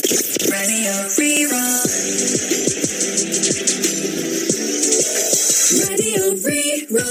Radio Rí-Rá. Radio Rí-Rá.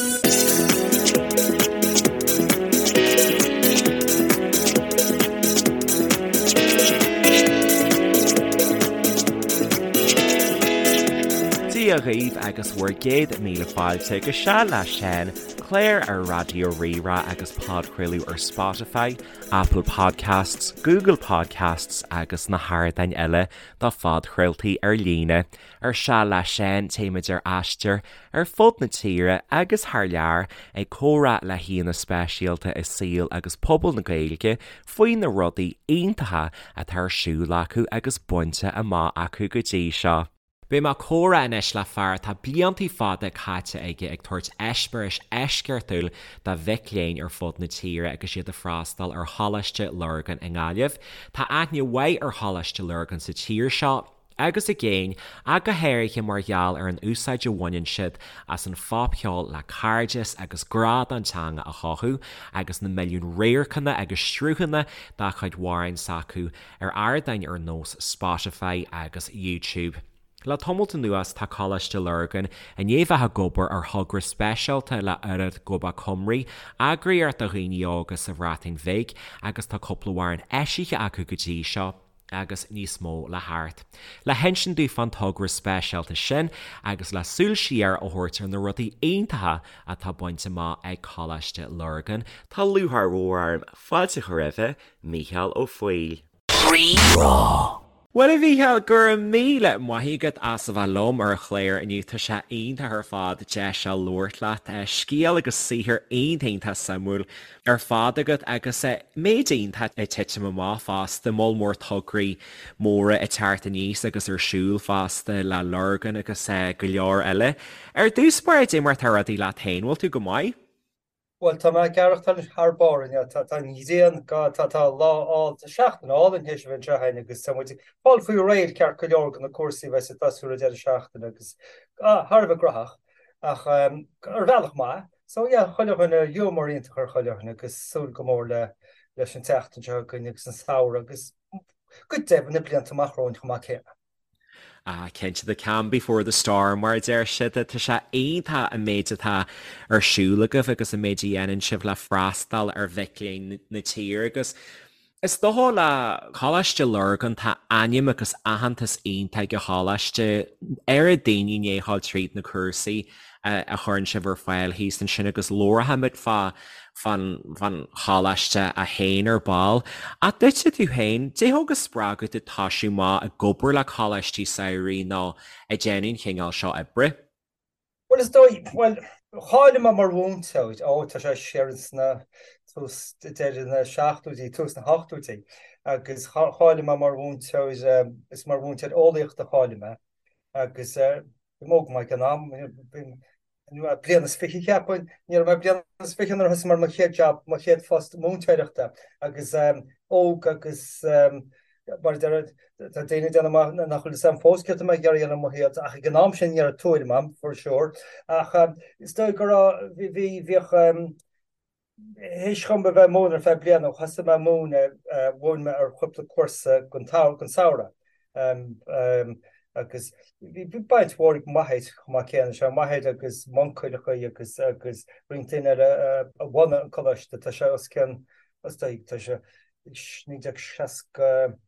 Dia dhaoibh agus bhur gcéad míle fáilte go Seal le Seán, clár ar Raidió Rí-Rá agus podchraoladh ar Spotify, Apple Podcasts, Google Podcasts agus na hardáin eile do phodchraoltaí ar líne. Ar Seal le Seán téimid ar aistear ar fud na tíre agus thar lear ag comhrá le haíonna speisialta i saol agus pobal na Gaeilge faoi na rudaí iontacha atá ar siúl acu agus bainte amach acu go dtí seo. Beidh mé ag comhrá anois le fear atá bliantaí fada caite aige ag tabhairt eispéiris eisceachtúil do mhic léinn ar fud na tíre agus iad ag freastal ar Choláiste Lurgan i nGaillimh. Tá aithne mhaith ar Choláiste Lurgan sa tír seo agus i gcéin, ach go háirithe mar gheall ar an úsáid a bhaineann siad as an phopcheol le cairdeas agus grá don teanga a chothú, agus na milliúin radharcanna agus sruthanna dá chuid amhráin s'acu ar ardáin ar nós Spotify agus YouTube. Le tamalt anuas tá Coláiste Lurgan i ndiaidh bheith ag obair ar thogra speisialta le Urdd Gobaith Cymru, eagraíocht do dhaoine óga sa Bhreatain Bhig agus tá cúpla amhrán eisithe acu go dtí seo agus níos mó le theacht. Le hinsint dúinn fán togra speisialta sin agus le súil siar a thabhairt ar na rudaí iontacha atá bainte amach ag Coláiste Lurgan, tá lúcháir mhór orm fáilte a chur roimhe, Mícheál Ó Foighil. Rí-Rá. Bhuel, a Mhícheáil, go raibh míle maith agat as a bheith liom ar an chlár inniu. Tá sé iontach ar fad deis seo labhairt leat. Scéal agus saothar iontach iontach suimiúil ar fad agat agus méid iontach ag titim amach fosta, moll mór tograí móra ag teacht aníos agus ar siúl fosta le Lurgan agus go leor eile. Ar dtús báire, cad é mar atá rudaí leat féin, bhfuil tú go maith? Bhuel, tá mé ag aireachtáil thar barr inniu. Tá an ghrian, tá tá lá álainn, tá seachtain álainn théis a bheith anseo againn agus tá muid ag fáil faoi réir ceart go leor do na cúrsaí a bheas ag tosú ar an deireadh seachtaine agus thar a bheith graitheach ach ar bhealach maith. So yeah, chuile dhuine, giúmar iontach ar chuile dhuine agus súil go mór le leis an tseachtain seo chugainn agus an samhradh agus go deimhin na blianta amach romhainn chomh maith céanna. Ah, cinnte, the calm before the storm, mar a deir siad. Tá sé iontach an méid atá ar siúl agaibh agus an méid a dhéanann sibh le freastal ar mhic léinn na tíre agus is dócha le Coláiste Lurgan, tá ainm agus aitheantas iontach ag an choláiste, oiread daoine i ndiaidh a ghabháil tríd na cúrsaí a chuireann sibh ar fáil thíos ansin agus labharfaimid fá fán choláiste é féin ar ball. Ach duitse tú féin, cad é a thug an spreagadh duit toisiú amach ag obair le coláistí samhraidh nó ag déanamh an chineál seo oibre? Bhuel, is dóigh, bhuel, cháiligh mé mar mhúinteoir, ó, tá sé siar sna tús, deireadh na seachtóidí, tús na hochtóidí, agus cháiligh mé mar mhúinteoir, is mar mhúinteoir eolaíochta a cháiligh mé, agus bhí mé óg go maith ag an am, bliain is fiche cheapfainn, ní raibh mé bliain is fiche nuair a thosaigh mé ar mo chéad job, mo chéad phost múinteoireachta agus óg agus mar a deir, tá daoine ag déanamh amach nach bhfuil fhios a'm fós céard atá mé ag iarraidh a dhéanamh i mo shaol ach ag an am sin ní raibh tuairim a'm for sure ach is dóigh go raibh, bhí, bhíodh Théis dhom a bheith ag múineadh ar feadh bliana, thosaigh mé ag múineadh, mhúin mé ar chúpla cúrsa don samhradh agus bhí baint mhór ag m'athair chomh maith céanna, sé m'athair agus m'uncail agus agus roinnt daoine eile a bhunaigh an coláiste, tá sé os cionn, is dóigh, tá sé 1960,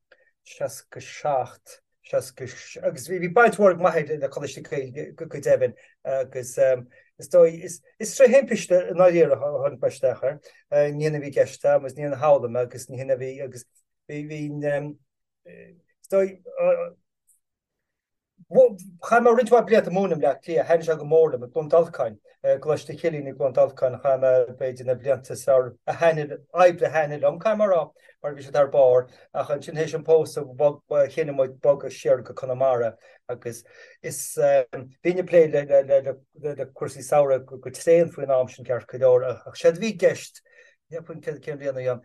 67. 60 agus bhí baint mhór ag m'athair le Coláiste Gaeilge go deimhin agus is dóigh, is tré thimpiste i ndáiríre a tháinig mé isteach air. Ní hin a bhí i gceist agam agus ní hin a shamhlaigh mé agus ní hin a bhí agus bhí bhí is dóigh chaith mé roinnt mhaith blianta ag múineadh i mBleá Cliath, thaitnigh sé go mór liom i gCluain Dolcáin, i gColáiste Chilliain i gCluain Dolcáin, chaith mé b'fhéidir na blianta is fearr a thaitnigh, oibre a thaitnigh liom, caithfidh mé a rá. mar bhí siad thar barr, ach ansin théis an pósadh bhog, chinn muid bogadh siar go Conamara agus is bhínn ag plé le le le le cúrsaí samhraidh go tréan faoin am sin ceart go leor ach séard a bhí i gceist. Cheapfainn cén bhliain a bhí ann,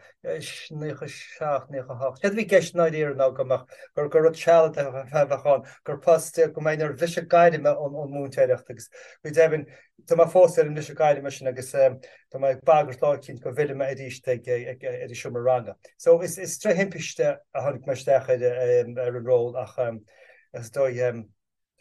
97, 98. Céard a bhí i gceist i ndáiríre ná go mbeadh, gur gur rud sealadach a bheadh ann, gur post, go mbeinn ar bhriseadh gairme ón múinteoireacht agus go deimhin tá mé fós ar an mbriseadh gairme sin agus tá mé ag bagairt lá eicínt go bhfillfidh mé arís ag ar an seomra ranga. So is is tré thimpiste a tháinig mé isteach ar ar an ról ach is dóigh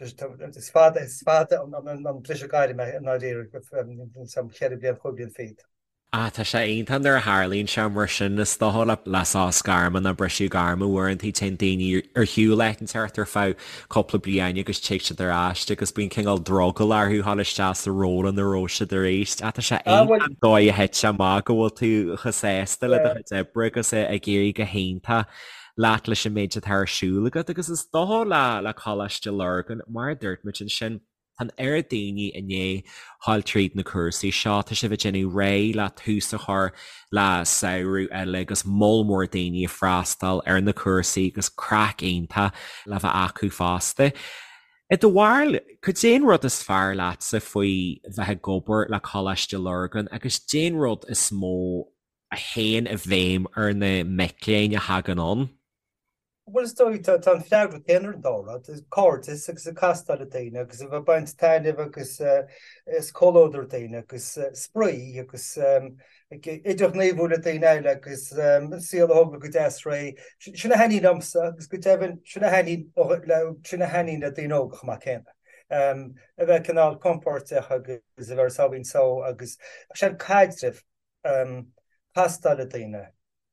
is fada is fada an briseadh gairme i ndáiríre, 4 bliain, 5 bliain fichead. Ah, tá sé iontach nuair a tharlaíonn sé mar sin, is dócha le le sos gairme nó briseadh gairme uaireanta téann daoine ar shiúl áit inteacht ar feadh cúpla bliain agus tig siad ar ais agus bíonn cineál drogall orthu dhul isteach sa ról ina raibh siad arís. Ah, tá sé Ah, bhuel, iontach an dóigh a thit sé amach go bhfuil tú chomh sásta le do yeah. chuid oibre agus ag éirí go hiontach leat leis an méid atá ar siúl agat agus is dócha le le Coláiste Lurgan mar a dúirt muid ansin, Tá an oiread daoine i ndiaidh dhul tríd na cúrsaí seo, tá sibh ag déanamh réidh le tús a chur le samhradh eile agus moll mór daoine ag freastal ar na cúrsaí agus craic iontach le bheith acu fosta. I do bharúil, cad é an rud is fearr leatsa faoi bheith ag obair le Coláiste Lurgan agus cad é an rud is mó a théann i bhfeidhm ar na mic léinn a thagann ann? Bhuel, is dóigh, tá an freagra céanna ar an dá rud, cairdeas agus ag castáil le daoine agus a bheith ag baint taitneamh agus is comhluadar daoine agus spraoi agus ag idirghníomhú le daoine eile agus an saol a thógáil go deas réidh. Sin a thaitníonn liomsa agus go deimhin sin a thaitníonn le sin a thaitníonn le daoine óga chomh maith céanna. A bheith cineál compordach agus a bheith ar a sáimhín só agus sin caidreamh, castáil le daoine.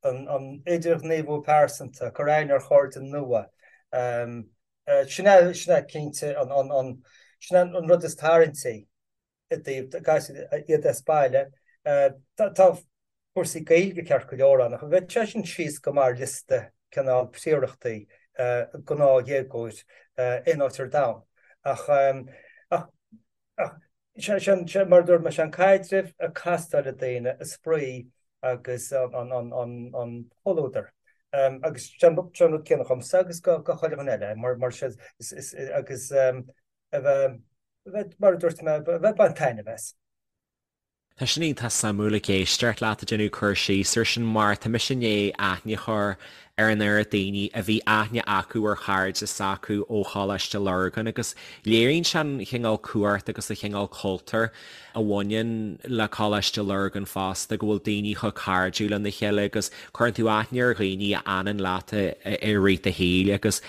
an idirghníomhú pearsanta, cur aithne ar chairde nua. Sin é, sin é cinnte an, sin é an rud is tarraingtí i dtaobh iad as baile. Tá cúrsaí Gaeilge ceart go leor ann, ach bheadh sé sin síos go maith ar liosta cineál príorachtaí gnáthdhéagóir aon áit ar domhan. Ach, ach, ach Sé mar a dúirt mé, sé an caidreamh, ag castáil le daoine, an spraoi agus an comhluadar. Agus sé an rud céanna dhomsa agus go chuile dhuine eile, mar sé agus a bheith, mar a dúirt mé, a bheith ag baint taitneamh as. Tá sin iontach suimiúil ag éisteacht leat ag déanamh cur síos ar sin mar tá mise i ndiaidh aithne a chur ar an oiread daoine a bhí aithne acu ar chairde s'acu ó Choláiste Lurgan agus léiríonn sé an chineál cumhacht agus an chineál cultúir a bhaineann le Coláiste Lurgan fosta, go bhfuil daoine chomh cairdiúil lena chéile agus cuireann tú aithne ar dhaoine a fhanann leat i rith do shaoil agus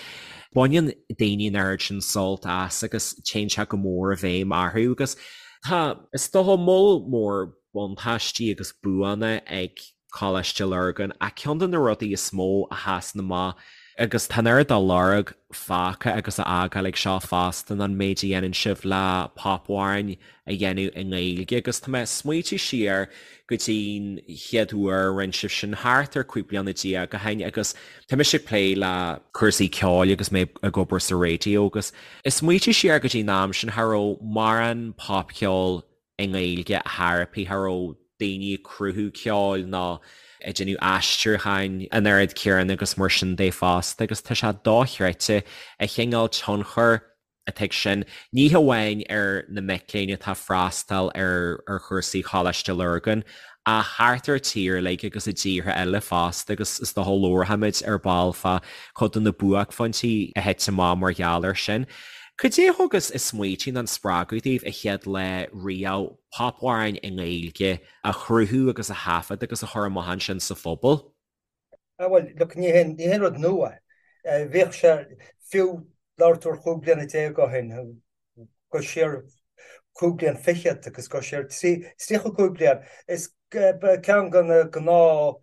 baineann daoine an oiread sin sult as agus téann sé go mór i bhfeidhm orthu agus tá, is dócha, moll mór buntáistí agus buanna ag Coláiste Lurgan, ach ceann de na rudaí is mó a sheasann amach, agus tá an oiread dá lorg fágtha agus á fhágáil ag seo fosta, ná an méid a dhéanann sibh le popamhráin a dhéanamh i nGaeilge. Agus tá mé ag smaoitiú siar go dtí'n chéad uair a rinne sibh sin, thart ar 15 bliana ó shin, agus tá mise ag plé le cúrsaí ceoil agus mé ag obair sa raidió, agus ag smaoitiú siar go dtí'n am sin, cha raibh mórán popcheol i nGaeilge ar chor ar bith, cha raibh daoine ag cruthú ceoil ná ag déanamh aistriúcháin an oiread céanna agus mar sin de fosta agus tá sé dochreidte an chineál tionchair atá ag sin, ní hamháin ar na mic léinn atá ag freastal ar ar chúrsaí Choláiste Lurgan ach thart ar an tír uilig agus i dtíortha eile fosta agus is dócha labharfaimid ar ball fá chuid de na buaicphointí a thit amach mar gheall air sin. Cad é a thug an smaoitiú nó an spreagadh daoibh an chéad lá riamh popamhráin i nGaeilge a chruthú agus a thaifead agus a chur amach ansin sa phobal? Ah bhuel, look, ní haon, ní haon rud nua é. Bhíodh sé, fiú labhair tú ar chúig bliana déag ó shin, go siar cúig bliain fichead agus go siar 35 bliain, is ceann de na gnáth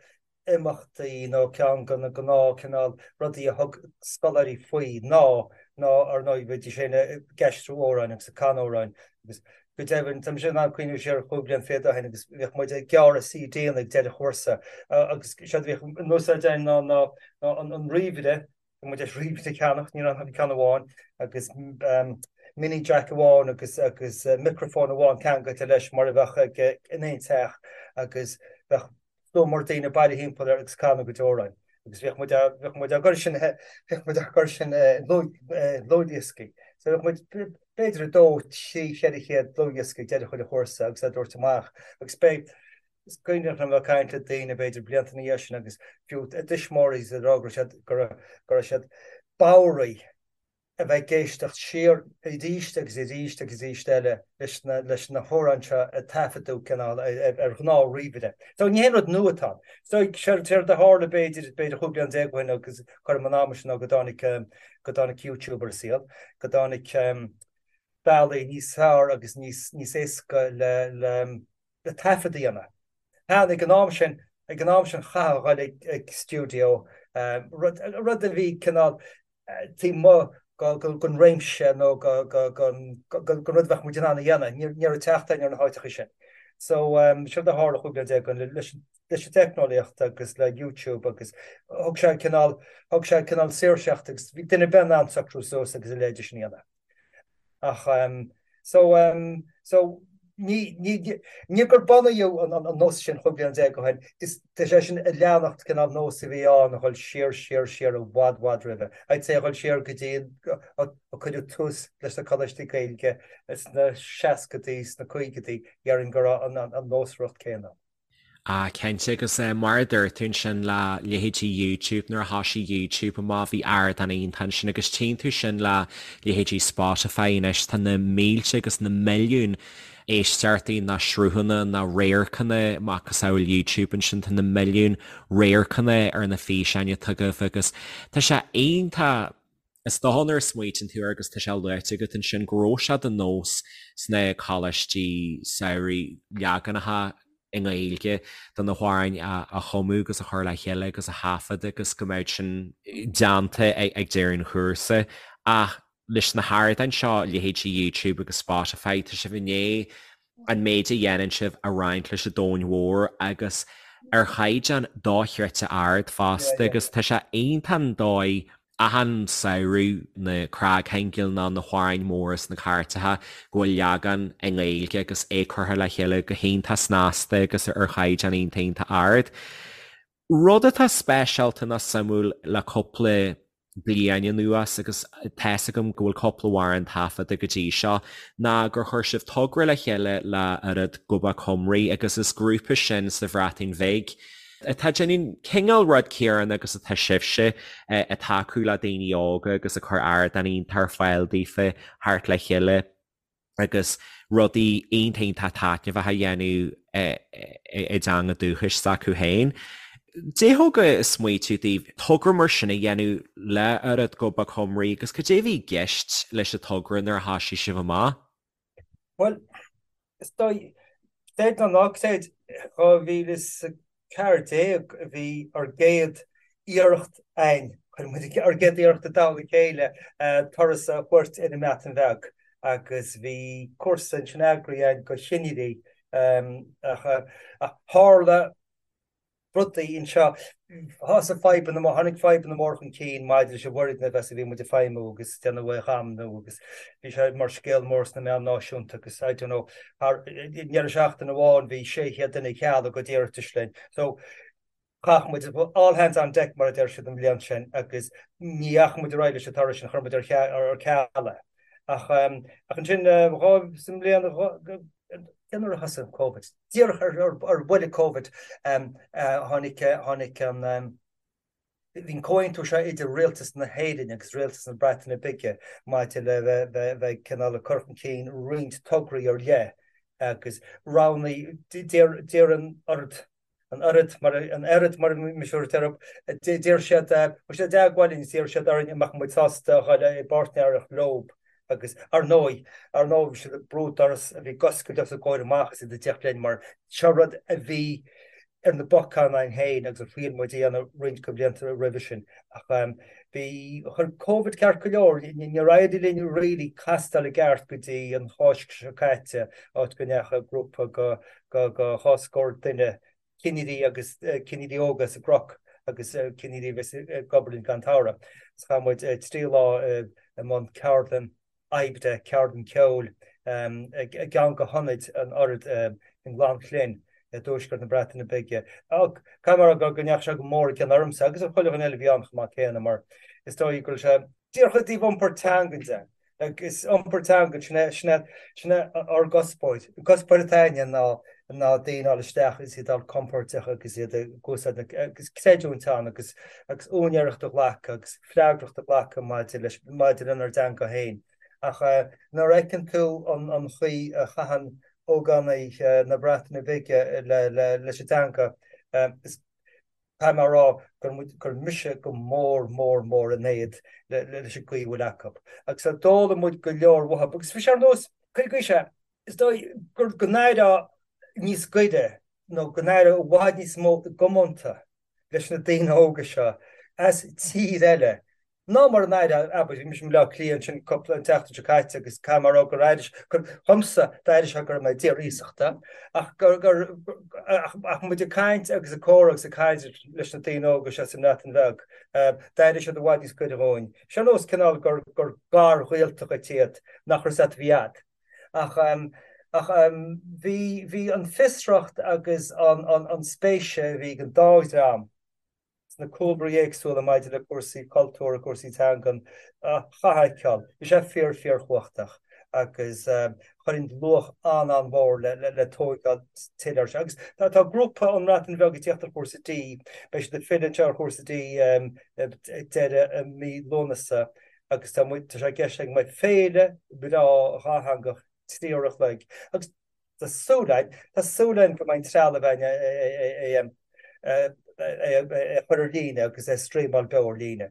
imeachtaí nó ceann de na gnáth cineál rudaí a thug scoláirí faoi ná ná ar ndóigh bhídís féin ag aistriú amhráin agus ag canadh amhráin agus go deimhin tá mise in ann cuimhniú siar chúig bliain fichead ó shin agus bhíodh muid ag gearradh CD-anna ag deireadh chúrsa agus séard a bhíodh in úsáid againn ná ná ná an ríomhaire Bhí muid tar éis ríomhaire a cheannach, ní raibh ach ceann amháin agus mini jack amháin agus agus micreafón amháin ceangailte leis mar a bheadh ag in aon teach agus bheadh slua mór daoine bailithe thimpeall air agus ag canadh a gcuid amhráin agus bhíodh muid á bhíodh muid á gcur sin bhíodh muid á gcur sin i ndlúthdhioscaí. So bhíodh muid b'fhéidir 2, 3, 400 dlúthdhiosca ag deireadh chuile chúrsa agus á dtabhairt amach agus beidh. Is cuimhneach liom ag caint le daoine b'fhéidir blianta ina dhiaidh sin agus fiú a dtuismitheoirí ag rá go raibh siad go raibh siad bodhraithe a bheith ag éisteacht siar arís agus arís agus arís eile leis na leis na hamhráin seo a taifeadadh cineál ar ghnáth ríomhaire. So ní haon rud nua atá ann. So séard a tharla b'fhéidir b'fhéidir 15 bliain ó shin agus cothrom an ama sin ná go dtáinig go dtáinig YouTube ar an saol, go dtáinig bealaí níos fearr agus níos níos éasca le le le taifead a dhéanamh. Cheana ag an am sin, ag an am sin chaithfeá a dhul ag stiúideo, rud, rud a bhí cineál taobh amuigh den réimse nó den rud a bheadh muid in ann a dhéanamh. Ní raibh teacht againn ar na háiteacha sin. So, séard a tharla 15 bliain ó shin leis leis an teicneolaíocht agus le YouTube agus thug sé cineál, thug sé cineál saoirseacht agus bhí duine ar bith in ann socrú suas agus a leithéid sin a dhéanamh. Ach so so ní ní ní gur bunaíodh an an nós sin 15 bliain ó shin, is tá sé sin ag leanacht cineál nós a bhí ann a dhul siar siar siar i bhfad bhfad roimhe. I'd say a dhul siar go dtí a cuireadh tús leis na coláistí Gaeilge sna seascadaí, sna caogaidí, déarfainn go raibh an an nósmhaireacht céanna. Ah cinnte agus mar a dúirt tú ansin le leithéidí YouTube nuair a thoisigh YouTube amach bhí ardán iontach ansin agus tchíonn tú sin le leithéidí Spotify anois tá na mílte agus na milliúin éisteachtaí ná sruthanna ná radharcanna macasamhail YouTube ansin tá na milliúin radharcanna ar na físeáin atá agaibh agus tá sé iontach Is dócha nuair a smaoitíonn tú air agus tá sé luaite agat ansin go raibh sé de nós sna coláistí samhraidh leaganacha i nGaeilge de na hamhráin a chumadh agus a chur le chéile agus a thaifead agus go mbeadh sin déanta ag deireadh an chúrsa. Ach leis na hardáin seo, leithéidí YouTube agus Spotify, tá sibh i ndiaidh an méid a dhéanann sibh a roinnt leis an domhan mhór agus ar chaighdeán dochreidte ard fosta agus tá sé iontach an dóigh achan samhradh na cnagshingil nó na hamhráin mhóra sna cairteacha go bhfuil leagan i nGaeilge agus é curtha le chéile go hiontach snasta agus ar chaighdeán iontach iontach ard. Rud atá speisialta nó suimiúil le cúpla bliain anuas, agus tá's agam go bhfuil cúpla amhrán taifeadta go dtí seo, ná gur chuir sibh togra le chéile le Urdd Gobaith Cymru agus is grúpa sin sa Bhreatain Bhig atá ag déanamh cineál rud céanna agus atá sibhse ag tacú le daoine óga agus ag cur ardán iontach ar fáil daofa theacht le chéile agus rudaí iontach iontach taitneamhach a dhéanamh i dteanga dúchais s'acu féin. Cad é thug an smaoitiú daoibh togra mar sin a dhéanamh le Urdd Gobaith Cymru agus cad é a bhí i gceist leis an togra nuair a thoisigh sibh amach? Bhuel, Is dóigh, creid nó ná creid, 2014 a bhí ár gcéad iarracht a'inn, chuir muid ár gcéad iarracht i dtoll a chéile turas a thabhairt ar an mBreatain Bheag agus bhí cúrsa ansin eagraithe a'inn do chinnirí ach tharla rudaí anseo. Thosaigh fadhbanna móra, tháinig fadhbanna móra chun cinn maidir leis an bhfoirgneamh as a bhí muid ag feidhmiú agus déanamh é a dhamnú agus bhí sé mar scéal mór sna meáin náisiúnta agus I don't know, thar i ndeireadh seachtaine amháin bhí 600 duine ag cealú a gcuid iarratais linn. So chaith muid all hands on deck mar a deir siad an bhliain sin agus ní dheachaigh muid ar aghaidh leis an turas sin, chuir muid ar ceal é. Ach ansin sa mbliain cé nuair a thosaigh an Covid? Díreach ar bhuille Covid tháinig tháinig an bhí an comhaontú seo idir Rialtas na hÉireann agus Rialtas na Breataine Bige maidir le bheith bheith cineál ag cur chun cinn roinnt tograí ar leith agus roghnaigh d'iarr an Urdd an Urdd mar an Urdd mar mise a deir d'iarr siad chuaigh siad i dteagmháil linn d'iarr siad orainn an mbeadh muid sásta a dhul i bpáirtnéireacht leo agus ar ndóigh ar ndóigh bhí siad ag brú doras a bhí ag oscailt os a gcomhair amach is iad ag tíocht linn mar seo rud a bhí ar na bacáin againn féin agus a thriail muid a dhéanamh roinnt de bhlianta roimhe sin ach bhí chuir Covid ceart go leor níor éirigh linn really castáil i gceart go dtí an Cháisc seo caite áit go ndeachaigh grúpa go go dhá scór duine, cinnirí agus cinnirí óga as an gCnoc agus cinnirí a bheas ag obair linn don tsamhradh. Agus chaith muid 3 lá i mbun ceardlann oibre, ceardlann ceoil i gceann de hionaid an Urdd i nGleann Llŷn i dtuaisceart na Breataine Bige. Caithfidh mé a rá go ndeachaigh sé go mór i gcion ormsa agus ar chuile dhuine eile a bhí ann chomh maith céanna mar is dóigh go raibh sé díreach i dtaobh iompar teangan de. Agus iompar teangan, sin é, sin é, sin é ár gcuspóir. An cuspóir atá againne ná. ná daoine a fháil isteach agus iad a fháil compordach agus iad ag úsáid na, agus creidiúint ann agus agus úinéireacht a ghlacadh agus freagracht a ghlacadh maidir leis, maidir lenár dteanga féin. Ach nuair a fheiceann tú an an chaoi a chaitheann ógánaigh na Breataine Bige le le leis an dteanga, is caithfidh mé a rá gur muid, gur mise go mór mór mór in éad le leis an gcaoi a bhfuil acu. Agus d'fhoghlaim muid go leor uathu. Agus bhí sé ar nós, cuir i gcás é, Is dóigh gur go n-éireofá níos gaire nó go n-éireofá i bhfad níos mó i gcomónta leis na daoine óga seo as tír eile ná mar a n-éireofá, abair, bhí mise i mBaile Átha Cliath ansin cúpla, an tseachtain seo caite agus caithfidh mé a rá gur éirigh, gur, dhomsa, d'éirigh sé go raibh mé i dtír iasachta ach gur, gur, ach, ach muid ag caint agus ag comhrá agus ag caint leis na daoine óga seo sa mBreatain Bheag, d'éirigh siad i bhfad níos gaire dhúinn. Sé ar nós cineál gur, gur garghaolta dhuit iad nach raibh a fhios agat a bhí a'd. Ach ach bhí bhí an fiosracht agus an an an spéis a bhí ag an dá dhream sna cúlraí éagsúla maidir le cúrsaí cultúir, cúrsaí teangan, chaithfeá a fheiceáil. Bhí sé fíor fíorchumhachtach agus chuir luach an-an-mhór le le le tóigeáil tuilleadh air seo. Agus tá tá grúpa ón mBreatain Bheag ag tíocht ar chúrsa D, beidh siad ag filleadh anseo ar chúrsa D ag deireadh mí Lúnasa agus tá muid, tá sé i gceist againn go mbeidh féile bhreá dhátheangach 3 uair a chloig agus tá súil againn, tá súil againn go mbeidh an trealamh againn é a chur ar líne agus é a streamáil beo ar líne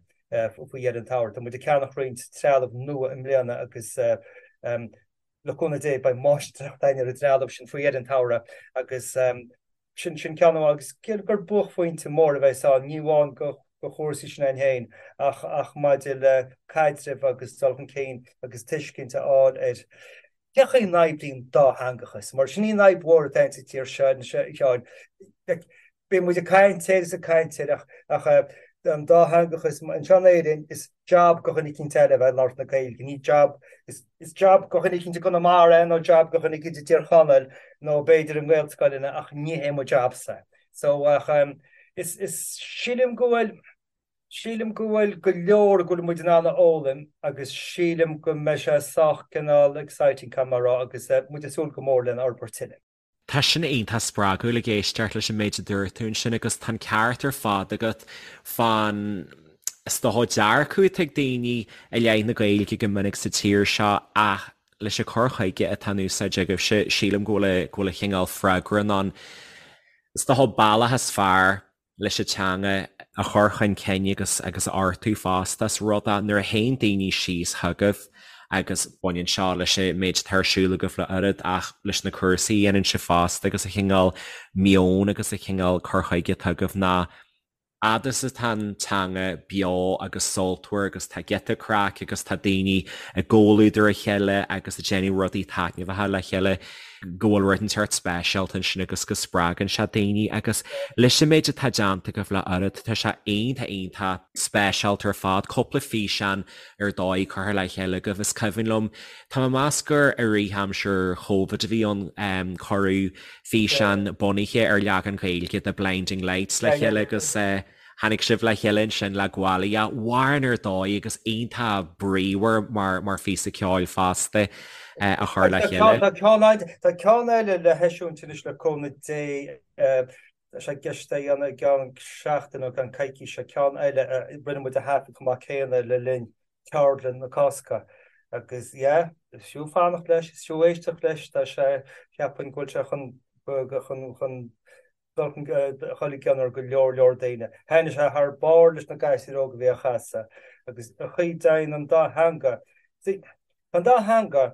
faoi dheireadh an tsamhraidh. Tá muid ag ceannach roinnt trealamh nua i mbliana agus le cúnamh Dé beidh máistreacht againn ar an dtrealamh sin faoi dheireadh an tsamhraidh agus Sin sin ceann amháin agus gur buaicphointe mór a bheas ann, ní amháin do chúrsaí sin againn féin ach ach maidir le caidreamh agus dul chun cinn agus tuiscint a fháil ar cén chaoi a n-oibríonn dátheangachas, mar sin í an fhadhb mhór atá sa tír seo anois a Sheáin. Bíonn muid ag caint air is ag caint air ach ach an dátheangachas anseo in Éirinn is jab do dhuine eicínt eile a bheith ag labhairt na Gaeilge, ní jab, is is jab do dhuine eicínt i gConamara é nó jab do dhuine eicínt i dTír Chonaill nó b'fhéidir i nGaelscoileanna ach ní hé mo jabsa. So ach is is sílim go bhfuil sílim go bhfuil go leor go bhfuil muid in ann a fhoghlaim agus sílim go mbeidh sé sách cineál exciting caithfidh mé a rá agus muid ag súil go mór lena fhorbairt tuilleadh. Tá sin iontach spreagúil ag éisteacht leis an méid a dúirt tú ansin agus tá an ceart ar fad agat fán is dócha dearcadh atá ag daoine i leith na Gaeilge go minic sa tír seo ach leis an cur chuige atá in úsáid agaibhse sílim go bhfuil go bhfuil an chineál freagra in ann is dócha bealach is fearr leis an teanga a chur chun cinn agus agus a fheartú fosta. Is rud é nuair a théann daoine síos chugaibh agus baineann seo leis an méid atá ar siúl agaibh le oiread ach leis na cúrsaí a dhéanann sibh fosta agus an chineál meoin agus an chineál cur chuige atá agaibh ná fhad is atá an teanga beo agus sultmhar agus tá giota craic agus tá daoine i gcomhluadar a chéile agus ag déanamh rudaí taitneamhacha le chéile. go bhfuil rud inteacht speisialta ansin agus go spreagann sé daoine agus leis an méid atá déanta agaibh le oiread, tá sé iontach iontach speisialta ar fad. Cúpla físeán ar dóigh curtha le chéile agaibh. Is cuimhin liom, tá mé ag meas gur i rith aimsir Chóivid a bhí ann, cuireadh físeán bunaithe ar leagan Gaeilge de Blinding Lights le chéile agus Tháinig sibh le chéile ansin le Gwalia, amhrán ar dóigh agus iontach bríomhar mar mar phíosa ceoil fosta a chur le chéile. Tá ceann tá ceann eile le heisiúint anois le cúnamh Dé, tá sé i gceist é a dhéanamh i gceann seachtain nó i gceann coicíse, ceann eile a rinne muid a thaifead chomh maith céanna le linn ceardlann na Cásca agus yeah, is fiú fanacht leis, is fiú éisteacht leis, tá sé, cheapfainn go bhfuil sé chun chun chun dul chun dul i gcion ar go leor leor daoine. Thaitnigh sé thar barr leis na gasúir óga a bhí á chasadh agus an chaoi a dtéann an dá theanga. See, tá an dá theanga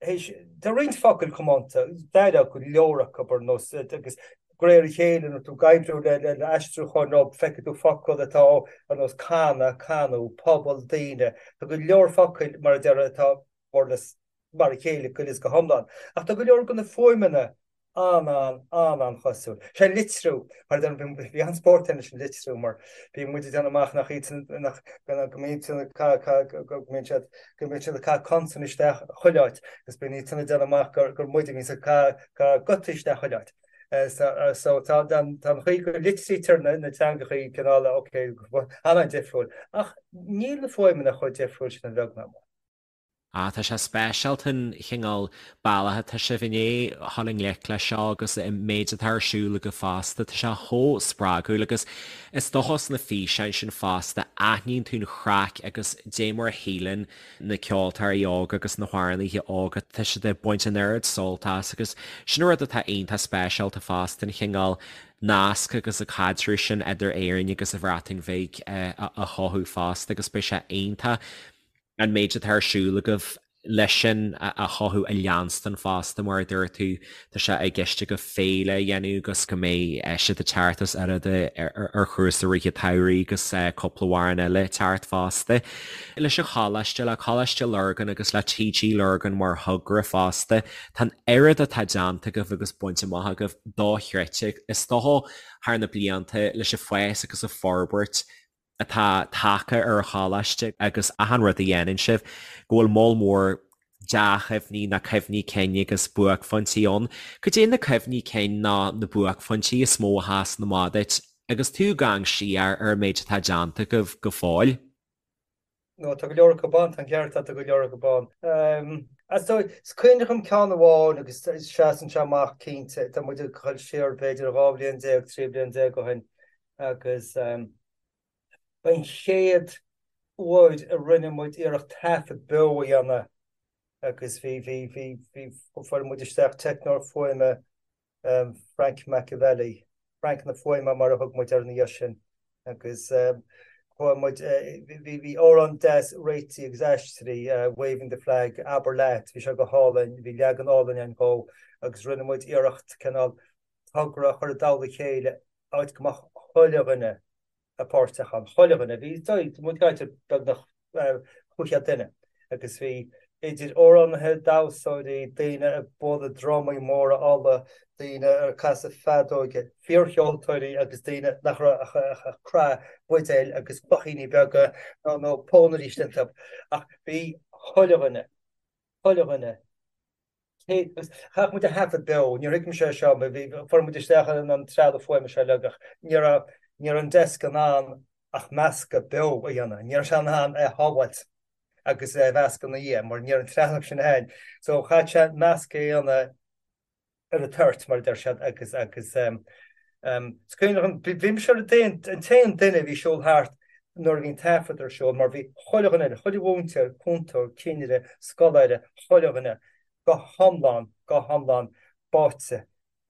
théis, tá roinnt focail comónta, d'éireodh go leor acu ar nós agus de réir a chéile nuair tú ag oibriú le le aistriúcháin nó feicfidh tú focal atá ar nós canadh, canú, pobal, daoine. Tá go leor focail mar a déarfá atá more or less mar a chéile go huile is go hiomlán. Ach tá go leor de na fuaimeanna an-an-an-an-chosúil. Sé an litriú, mar a deirim, bhí an-spórt ann leis an litriú mar bhí muid ag déanamh amach nach iad sin, nach, go mbíonn siad ag ca, ca, go mbíonn siad, go mbíonn siad ag caitheamh consan isteach chuile áit agus bíonn iad sin ag déanamh amach gur, gur muid a bhíonns ag caitheamh, caitheamh gutaí isteach chuile áit. So, so tá, tá an chaoi go litrítear na, na teangachaí cineál, ok, an-an-difriúil. Ach níl na fuaimeanna chomh difriúil sin a bheag ná mór. Ah, tá sé speisialta an chineál bealach atá sibh i ndiaidh dhul i ngleic leis seo agus an méid atá ar siúl agaibh fosta, tá sé chomh spreagúil agus is dócha sna físeáin sin fosta aithníonn tú an chraic agus dé mar a shíleann na ceoltóirí óga agus na hamhránaithe óga, tá siad ag baint an oiread sult as agus sin an rud atá iontach speisialta fosta, an chineál nasc agus an caidreamh sin idir Éirinn agus an Bhreatain Bhig a chothú fosta agus beidh sé iontach an méid atá ar siúl agaibh leis sin a chothú a leanstan fosta, mar a dúirt tú, tá sé i gceist agaibh féile a dhéanamh agus go mbeidh siad ag teacht os oiread ar chúrsa rith an tsamhraidh agus cúpla amhrán eile ag teacht fosta. Leis an choláiste, le Coláiste Lurgan agus le TG Lurgan mar thogra fosta, tá an oiread atá déanta agaibh agus bainte amach agaibh dochreidte. Is dócha thar na blianta leis an bhfás agus an forbairt atá tagtha ar an choláiste agus achan rud a dhéanann sibh, go bhfuil moll mór dea-chuimhní nó cuimhní cinn agus buaicphointí ann. Cad é na cuimhní cinn nó na buaicphointí is mó a sheasann amach duit agus tú ag amharc siar ar an méid atá déanta agaibh go fóill? No, tá go leor acu ann, tá an ceart agat, tá go leor acu ann. Is cuimhin liom ceann amháin agus seasann sé amach cinnte, tá muid ag dul siar b'fhéidir 12 bhliain, 13 bliain ó shin agus ba an chéad uair a rinne muid iarracht taifead beo a dhéanamh agus bhí, bhí, bhí, bhí, fuair muid isteach teicneoir fuaime Frank Machiavelli, Frank na Fuaime mar a thug muid air ina dhiaidh sin agus chuaigh muid, bhí, bhí amhrán deas réitithe agus aistrithe, Waving the Flag, Abair Leat, bhí sé go hálainn, bhí leagan álainn ann dhó agus rinne muid iarracht cineál togra a chur i dtoll a chéile áit go mbeadh chuile dhuine páirteach ann, chuile dhuine. Bhí muid ag caint ar beagnach 500 duine agus bhí idir amhránaithe, damhsóirí, daoine ag bualadh drumaí móra olla, daoine ag casadh feadóige, fíorcheoltóirí agus daoine nach raibh ach ag croitheadh buidéil agus cloichíní beaga nó pónairí istigh iontu. Ach bhí chuile dhuine, chuile dhuine. Chaith muid a thaifead beo, níor thuig mise é seo, bhí, fuair muid isteach an trealamh fuaime seo uilig ach ní raibh, ní raibh an desk in ann ach meascadh beo a dhéanamh, ní raibh sé in ann é a shábháilt agus é a mheascadh ina dhiaidh mar ní raibh an trealamh sin ann. So chaith sé meascadh a dhéanamh ar an toirt mar a deir siad agus, agus is cuimhin liom, bhí mise ar an t-aon duine a bhí ag siúl thart nuair a bhí an taifead ar siúl mar bhí chuile dhuine eile, chuile mhúinteoir, cúntóir, cinnire, scoláire, chuile dhuine go hiomlán, go hiomlán báite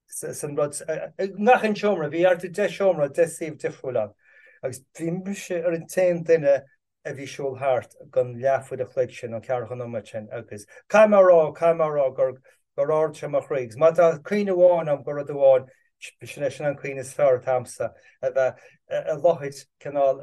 san rud. I ngach aon seomra, bhí thart ar 10 seomra, 10 suíomh difriúil ann agus bhí mise ar an t-aon duine a bhí ag siúl thart don leathuair a chloig sin, nó ceathracha nóiméad sin agus caithfidh mé a rá, caithfidh mé a rá gur, gur ardaigh sé mo chroí agus má tá cuimhne amháin agam de rud amháin, sin é, sin an cuimhne is fearr atá agamsa, a bheith i láthair cineál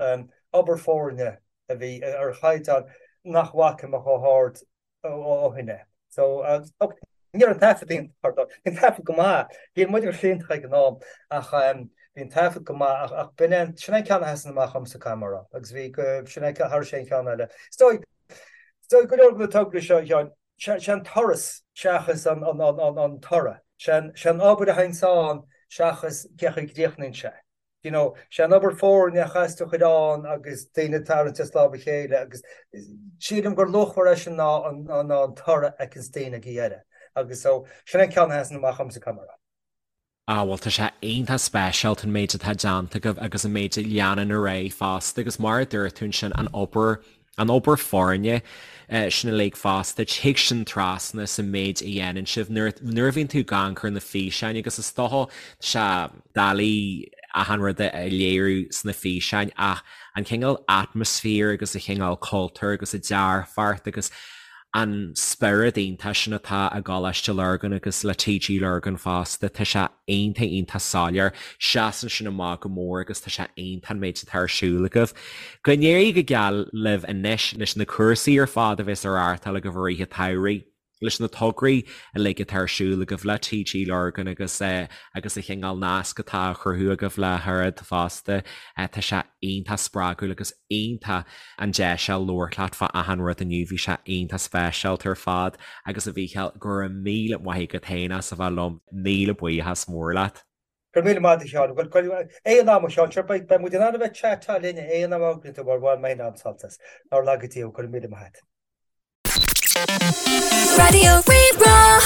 obair foirne a bhí ar chaighdeán nach bhfaca mé chomh hard ó shin é. So, ok, ní raibh an taifead iontach ar dóigh. Bhí an taifead go maith. Bhí muid go hiontach ag an am ach bhí an taifead go maith ach b'in é, sin é an ceann a sheasann amach dhomsa caithfidh mé a rá. Agus bhí go, sin é thar aon cheann eile. Is dóigh, is dóigh go leor de na tograí seo, a Sheáin, sé an turas seachas an, an, an, an toradh. Sé an, sé an obair a théanns ann seachas cé chaoi a gcríochnaíonn sé. you know, sé an obair foirne a chaithfeas tú a chur ann agus daoine ag tarraingt as lámh a chéile agus sílim gur luachmhaire é sin ná an, ná an toradh a fheiceanns daoine ag a dheireadh. Agus so, sin an ceann a sheasann amach dhomsa, caithfidh mé a rá. Ah bhuel tá sé iontach speisialta an méid atá déanta agaibh agus an méid a leanann ar aghaidh fosta agus mar a dúirt tú ansin an obair An obair foirne sin uilig fosta, tig sin trasna sa méid a dhéanann sibh nuair a bhíonn tú ag amharc ar na físeáin agus is dócha tá sé doiligh achan rud a léiriú sna físeáin ach an cineál atmaisféar agus an cineál cultúr agus an dearfacht agus an spiorad iontach sin atá i gColáiste Lurgan agus le TG Lurgan fosta, tá sé iontach iontach soiléir. Seasann sin amach go mór agus tá sé iontach an méid atá ar siúl agaibh. Go n-éirí go geal libh anois leis na cúrsaí ar fad a bheas á reáchtáil agaibh i rith an tsamhraidh, leis na tograí uilig atá ar siúl agaibh le TG Lurgan agus agus an chineál nasc atá á chruthú agaibh le hOiread fosta. Tá sé iontach spreagúil agus iontach an deis a labhairt leat fá achan rud inniu, bhí sé iontach speisialta ar fad agus a Mhícheáil, go raibh míle maith agat féin as a bheith liom, míle buíochas mór leat. Go raibh míle maith agat a Sheáin. Bhuel, aon am a Sheáin, sure beidh muid in ann a bheith ag chat linn aon am a thograíonn tú mar bhain mé féin an-sult as. Nár laga Dia thú, go raibh míle maith agat. Raidió Rí-Rá.